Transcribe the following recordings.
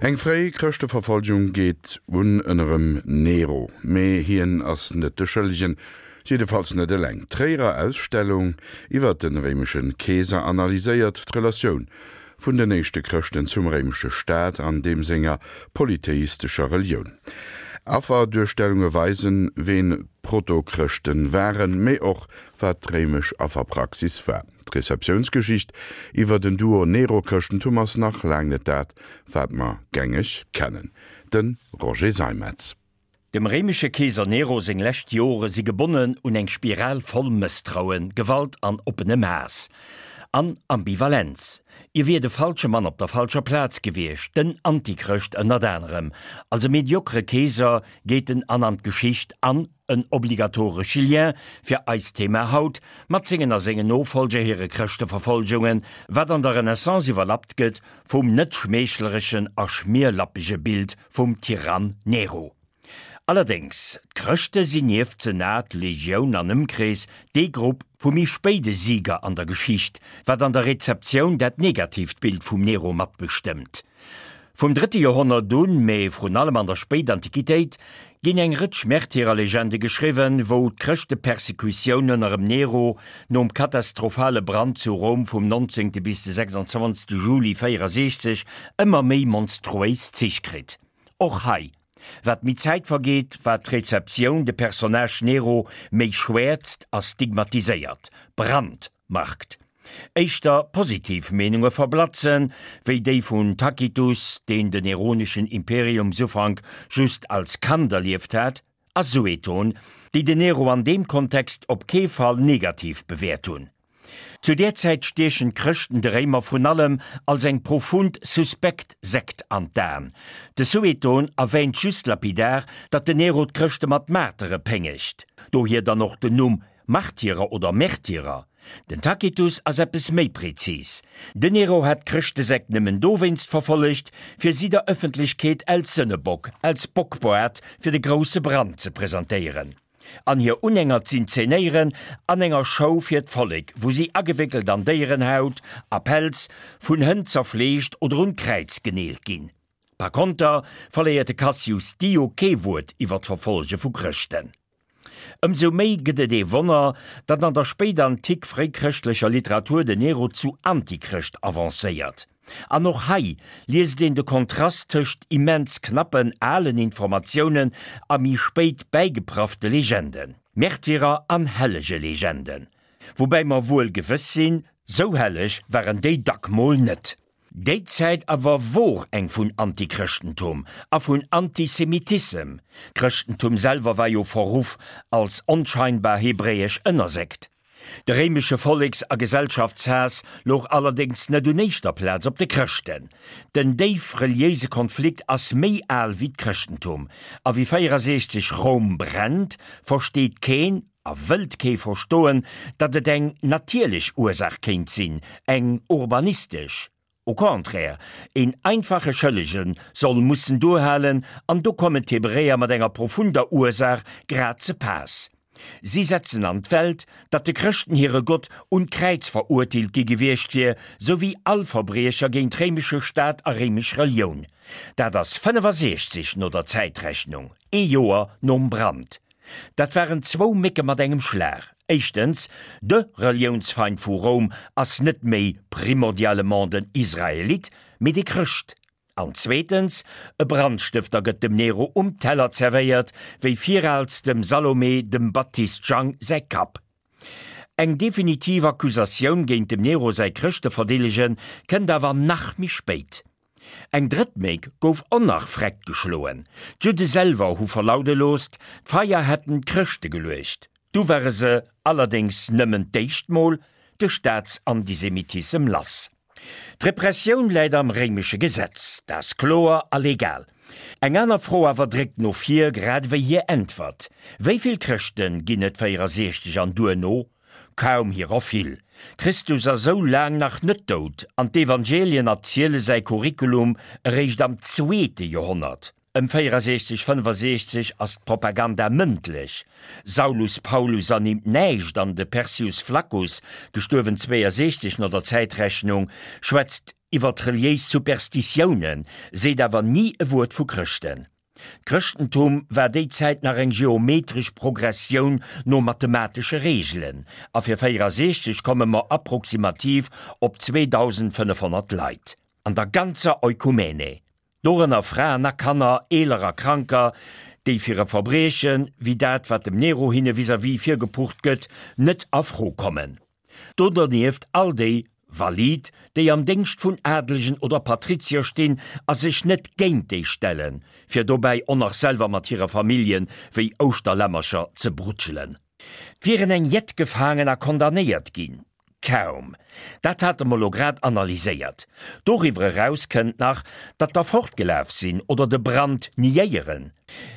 Eng fréi Chrëschteverfolgung geet un ënnerem Nero, mee hien ass net de Schëllegen, jiddefalls net eleng. D'Tréierer Ausstellung iwwer de réimesche Keeser analyséiert d'Relatioun vun den éischte Chrëschten zum réimesche Staat an deem senger polytheistescher Relioun. Afferduerstellunge weisen, ween d'Protochrëschten waren, mee och wat d'réimesch Afferpraxis war. D'Receptiounsgeschicht iwwer den Duo Nero-Chrëschtentum ass nach laang net dat, wat mer gängeg kennen. De Roger Seimetz. Dem réimesche Keeser Nero seng lescht Jore si gebonnen un eng Spiral voll Mësstrauen, Gewalt an oppenem Haass. An Ambivalenz. Hie wier de falsche Mann op der falscher Plaz gewiescht, den Antichrëscht ënnert anerem. Als e mediokere Keeser geet en an an d'Geschicht an, en obligatoresche Lien fir eist Thema haut, mat sengen a sengen Nofolger hire Chrëschteverfolgungen, wat an der Renaissance iwwerlappt gëtt vum net schmeechlerechen a schmierlappege Bild vum Tyrann Nero. Allerdéngs, d'Chrëschte sinn nieft Senat, Legioun an Ëmkrees dee Grupp vu méi spéide Sieger an der Geschicht, wat an der Rezeptioun dat negatiivt Bild vum Nero matbestëmmt. Vum drëtte Joerhonnert un, mee vrun allem an der Spéitantiquitéit, ginn eng Rëtsch Märtyrerlegende geschriwwen, wou d'Chrëschtepersekutioun ënnerem Nero nom katastrophale Brand zu Roum vum 19. bis de 26. Juli 64 ëmmer méi monstruéis Zich kritt. Och hei, wat méi Zäit vergeet, wat d'Rezeptioun de Personnage Nero méi schwäerzt a stigmatiséiert, brandmarkt. Éischter positiv Meenunge verblatzen, wéi déi vun Tacitus, deen den neroneschen Imperiumsufank just als Kand erlieft hat, a Sueton, déi den Nero an deem Kontext op kee Fall negativ bewäert hunn. Zu där Zäit stiechen d'Chrëschten de Réimer vrun allem als eng profund suspekt Sekt an d'Aen. De Sueton erwähnt just lapidar, datt den Nero d'Chrëschte mat Martere péngegt, dohier dann och den Numm Martyrer oder Märtyrer. Den Tacitus ass eppes méi prezis, Den Nero hat d'Chrëschtesekt nëmmen dowéinst verfollegt, fir si der Ëffentlechkeet als Sënnebock, als Bockboart fir de grousse Brand ze presentéieren an hir Unhänger z'inzenéieren an enger Show fir d'Vollek, wou si agewéckelt an Déierenhaut a Pelz, vun Hënn zerfleegt oder un d'Kräiz geneelt ginn. Par konter verléiert de Cassius Dio kee Wuert iwwer d'Verfollege vu Chrëschten. Ëmsou méi gëtt et ee Wonner, datt an der spéidantik-fréichrëschtlecher Literatur den Nero zu Antichrëscht avancéiert. An och hei liest een de Kontrast tëscht immens knappen alen Informatiounen a méi spéit bäigepraffte Legenden, Märtyrer an Hellegelegenden. Woubäi mer wuel gewëss sinn, sou helleg waren déi dack mol net. Déi Zäit awer wor eng vun Antichrëschtentum a vun Antisemitissem. D'Chrëschtentum selwer war jo verruff als onscheinbar hebräesch Ënnersekt. De réimesche Volleks a Gesellschaftshaass louch allerdéngs net un éischter Plaz op de Chrëschten. Den déif reliéise Konflikt ass méi al wéi d'Chrëschtentum, a wéi 64 Roum brennt, versteet keen, A wëllt kee verstoen, datt et eng natierlech Ursaach kéint sinn, eng urbanistesch? Au contraire, een einfache Schëllege soll mussen duerhalen, an do kommen d'Hebräer mat enger profunder Ursaach grad ze paass. Si setzen an d'Welt, datt de Chrëschten hire Gott un d'Kräiz verurteelt gi gewiescht wier, sou wéi all Verbriecher géint réimesche Staat a réimesch Relioun. Dat ass 65 no der Zäitrechnung, ee Joer nom Brand. Dat waren zwou Mécke mat engem Schlag. Éischtens, de Reliounsfeind vu Roum ass net méi primordialement den Israelit, mee de Chrëscht. An zweetens, e Brandstëfter gëtt dem Nero um Teller zerwéiert, wéi viraals dem Salome dem Baptist Jang säi Kapp. Eng definitiv Accusatioun géint dem Nero säi Chrëschteverdeelege kënnt awer nach méi spéit. Eng drëtt Méck gouf och nach vreckt geschloen. D'Judde selwer hu verlaude loosst, d'Feier hätten d'Chrëschte geluecht. Du ware se allerdéngs nëmmen d'éischt Mol de Staatsantisemitissem lass. D'Repressioun läit am réimesche Gesetz, dat ass kloer a legal. Eng aner Fro awer dréckt no vir, grad ewéi hir Äntwert, Wéi vill Chrëschte ginn et 64 an duerno? Kaum hirer vill. Christus ass sou laang nach net dout an d'Evangelien erziele säi Curriculum eréischt am zweete Joerhonnert. Ëm 64, 65 ass d'Propaganda mëndlech. Saulus Paulus ernimmt näischt an de Persius Flaccus, gestuerwen 62 no der Zäitrechnung, schwätzt. Iwwert reliéis Superstitiounen, seet awer ni e Wuert vu Chrëschten. D'Chrëschtentum war déi Zäit nach eng geometresch Progressioun no mathematesche Reegelen, a fir 64 komme mer approximativ op 2.500 Leit an der ganzer Oikumene, dorënner Fraen a Kanner, Eeler a Kranker, déi fir e Verbrieche wéi dat wat dem Nero hinne vis-à-vis virgepucht gëtt, net a Fro kommen. Do dernieft all déi Valid, déi am Déngscht vun Adelegen oder Patrizier stinn a sech net géint déi stellen, fir dobäi och nach selwer mat hire Famillje wéi Ouschterlämmercher ze brutschelen. 't wieren eng jett gefaangen a condamnéiert ginn. Kaum. Dat hate mer lo grad analyséiert. Doriwwer eraus kënnt nach, datt der fortgelaf sinn oder de Brand niéieren.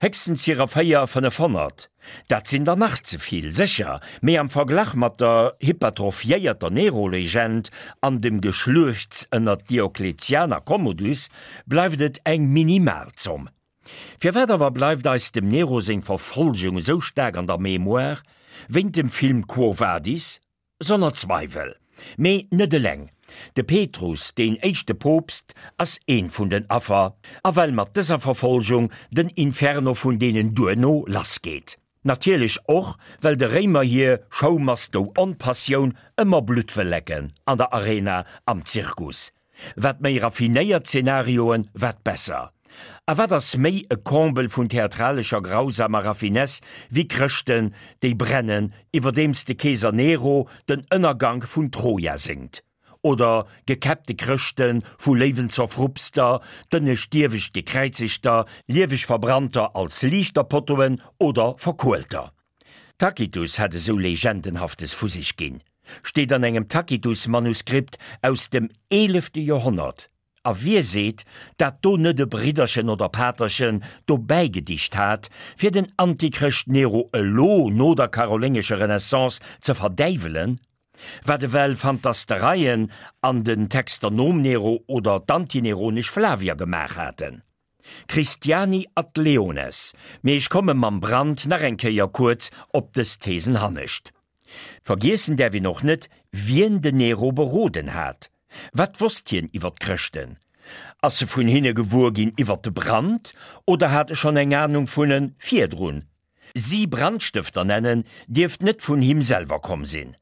Héchstens hirer 4, 500. Dat sinn der nach ze vill, sécher, mee am Verglach mat der hypertrophiéierter Nero-Legend an dem Geschluechts ënner Diokletian a Commodus bleift et eng minimal Zomm. Firwat awer bleift eis dem Nero seng Verfolgung esou staark an der Mémoire? Wéint dem Film Quo Vadis? Sonner Zweiwel. Mee net eleng. De Petrus, deen éischte Poopst, ass eent vun den Affer, a well mat dëser Verfolgung den Inferno vun deenen duerno lassgeet. Natierlech och, well de Réimer hir Show must go on-Passioun ëmmer Blutt wëll lecken, an der Arena, am Zirkus. Wat méi raffinéiert Zenarioen, wat besser. A wat ass méi e Comble vun theatralescher grausamer Raffinesse wéi Chrëschten, déi brennen, iwwerdeems de Keeser Nero den Ënnergank vun Troja séngt? Oder gekäppte Chrëschten, vu Léiwen zerfrupster, d'ënnescht dierwecht Gekräizegter, lieweg Verbrannter als Liichterpottoen oder Verkuelter? Tacitus hätt esou Legendenhaftes vu sech ginn, steet an engem Tacitus-Manuskript aus dem eelefte Joerhonnert. A wie seet, dat do net e Bridderchen oder Paterchen dobäi gedicht hat, fir den Antichrëscht Nero elo no der karoléngescher Renaissance ze verdäiwelen? Wat ewell Fantastereien an den Texter nom Nero oder d'antineronesch Flavier gemaach haten? Christiani ad leones, mee ech komme mam Brand nach eng Kéier kuerz op dës Thesen hannescht. Vergiessen däerf een och net, wien den Nero beroden hat. Wat wosst hien iwwer d'Chrëschten? Ass e vun hinne gewuer ginn iwwer de Brand oder hat e schonn eng Anung vun e virdrun? Si Brandstëfter nennen, dierft net vun him selwer komm sinn.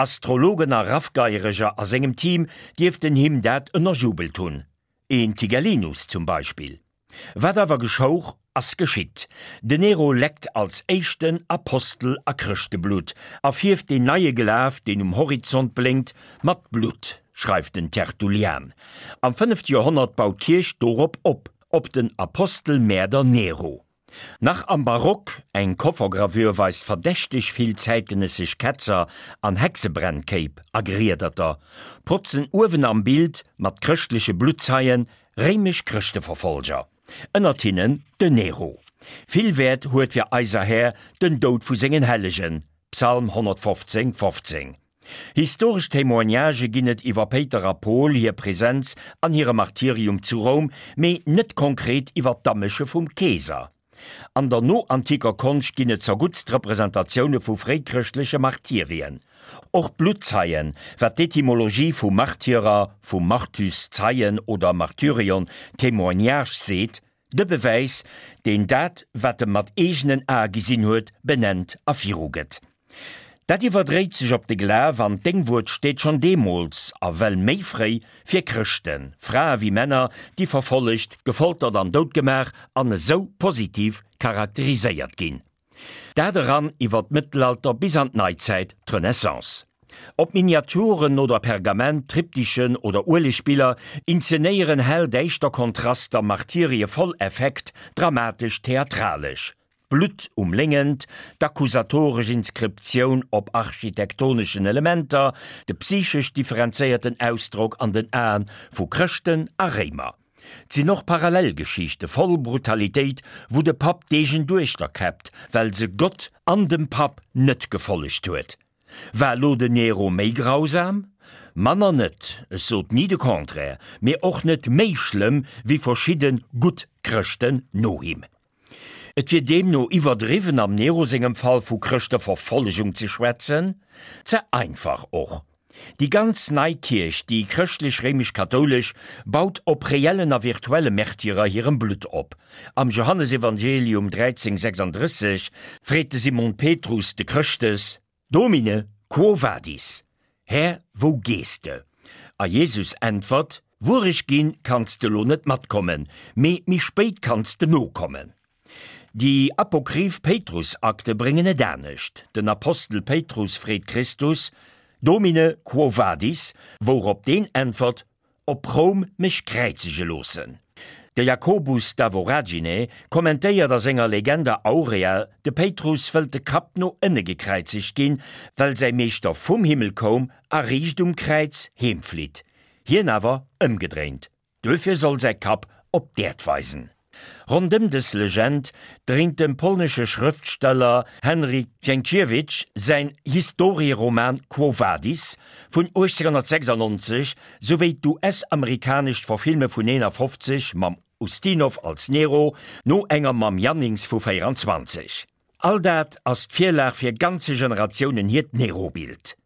Astrologen a Raffgeiereger a sengem Team dierften him dat ënnerjubelt hunn. Een Tigellinus zum Beispill. Wat awer geschouch, ass geschitt. Den Nero leckt als éischten Apostel a Chrëschteblutt a fierft deen neie Glaf, deen um Horizont blénkt, mat Blutt, schreift den Tertullian. Am fënnefte Joerhonnert baut d'Kierch dorop op, op den Apostelmäerder Nero. Nach am Barock, eng Koffergravür weist verdächteg vill zäitgenëssesch Ketzer an Hexebrennkéip a Griederter, protzen uewen am Bild mat chrëschtleche Bluttzeien réimesch Chrëschteverfolger, ënnert hinnen den Nero. Vill Wäert huet fir eiser Här den Doud vu sengen Hellegen, Psalm 115, 15. Historesch Témoignagë ginn et iwwer Péiter a Pol, hir Presenz an hire Martyrium zu Roum, mee net konkret iwwer d'Amësche vum Keeser. An der noantiker Konscht ginn et zerguttst Representatioune vu fréichrëschtleche Martyrien. Och Bluttzeien, wat d'Etymologie vu Martyrer, vu martus Zeien oder martyrion Témoignage seet, De Bewäis, deen dat, wat e mat eegenen Ae gesinn huet, benennt a virugëtt. Dat iwwerdréit sech op de Glaf an d'Déngwuert steet schonn deemools, a well méi fréi, fir Chrëschten, Frae wéi Männer, déi verfollegt, gefoltert an doutgemaach an esou positiv charakteriséiert ginn. Dat eran iwwer d'Mëttelalter bis an d'Neizäit, d'Renaissance. Ob Miniaturen oder Pergament, Triptychen oder Uelegbiller inzenéieren hell däischter Kontraster Martyrie voll Effekt, dramatesch, theatralesch. D'Blutt um Léngent, d'accusatoresch Inskriptioun op architektoneschen Elementer, de psychesch differenzéierten Ausdrock an den Aen vu Chrëschten a Réimer. 't sinn och Parallelgeschichte voll Brutalitéit, wou de Papp d'eegen Duechter käppt, well se Gott an dem Papp net gefollegt huet. War lo den Nero méi grausam? Manner net, ech sot ni de Contraire, mee och net méi schlëmm wéi verschidde gutt Chrëschten no him. Et wier deemno iwwerdriwwen am Nero sengem Fall vu Chrëschteverfollegung ze schwätzen, ze einfach och. Déi ganz nei Kierch, déi chrëschtlech-réimesch-kathoulesch, baut op reellen a virtuelle Märtyrer hirem Blutt op. Am Johannesevangelium 13, 36 freet de Simon Petrus de Chrëschtes, Domine, quo vadis? Här, wou gees de? A Jesus äntwert, Wuer ech ginn, kanns de lo net matkommen, mee méi spéit kanns de nokommen. Déi apokryph Péitrusakte bréngen et anescht, Den Apostel Péitrus freet Christus, Domine, quo vadis? Wourop deen äntwert, Op Roum mech kräizege loossen. De Jacobus da Voragine kommentéiert a senger Legenda Aurea, de Péitrus wëllt de Kapp no ënne gekräizegt ginn, well säi Meeschter vum Himmel koum a riicht um Kräiz heemflitt, hien awer ëmgedréint. Duerfir soll säi Kapp op d'Äerd weisen. Rondëm dës Legend dréint dem polnesche Schrëftsteller Henryk Sienkiewicz säin Historieroman Quo Vadis vun 1896 souwéi d'US-amerikanescht Verfilme vun 51 mam Ustinov als Nero no enger mam Jannings vu 24. All dat ass d'Virlag fir ganze Generatiounen hiert Nero-Bild.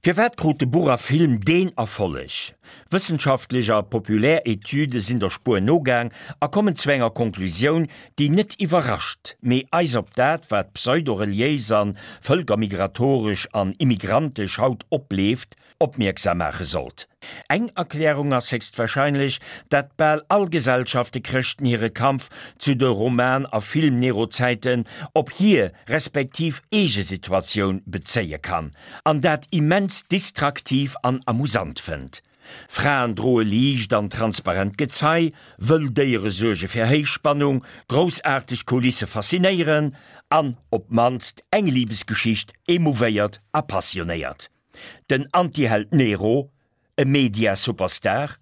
Firwat krut de Buch a Film deen Erfolleg? Wëssenschaftlech a populär Etüde sinn der Spuer nogaang a kommen zu enger Konklusioun, déi net iwwerrascht, mee eis op dat, wat pseudo-reliéis an vëlkermigratoresch an immigrantesch haut opleeft, opmierksam maache sollt. Eng Erklärung ass héchstwahrscheinlech, dat bal all Gesellschafte Chrëschten hire Kampf zu de Roman a Film-Nero-Zäiten op hir respektiv eege Situatioun bezéie kann, an dat immens distraktiv an amusant fënnt. Fraen droe liicht an transparent Gezei, wëll Déiere suerge fir Héichspannung, groussaarteg Kulisse faszinéieren an op d'mannst eng Libesgeschicht emouvéiert a passionéiert. Den Antiheld Nero, e Media-Superstar?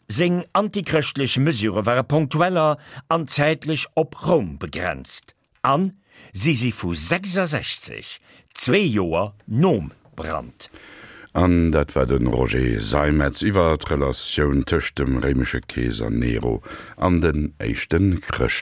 Seng antichrëschtlech Mesure ware ponktueller an zäitlech op Roum begrenzt. An si si vu 66, zwee Joer nom Brand. An dat war de Roger Seimetz iwwer d'Relatioun tëscht dem réimesche Keeser Nero an den éischte Chrëschten.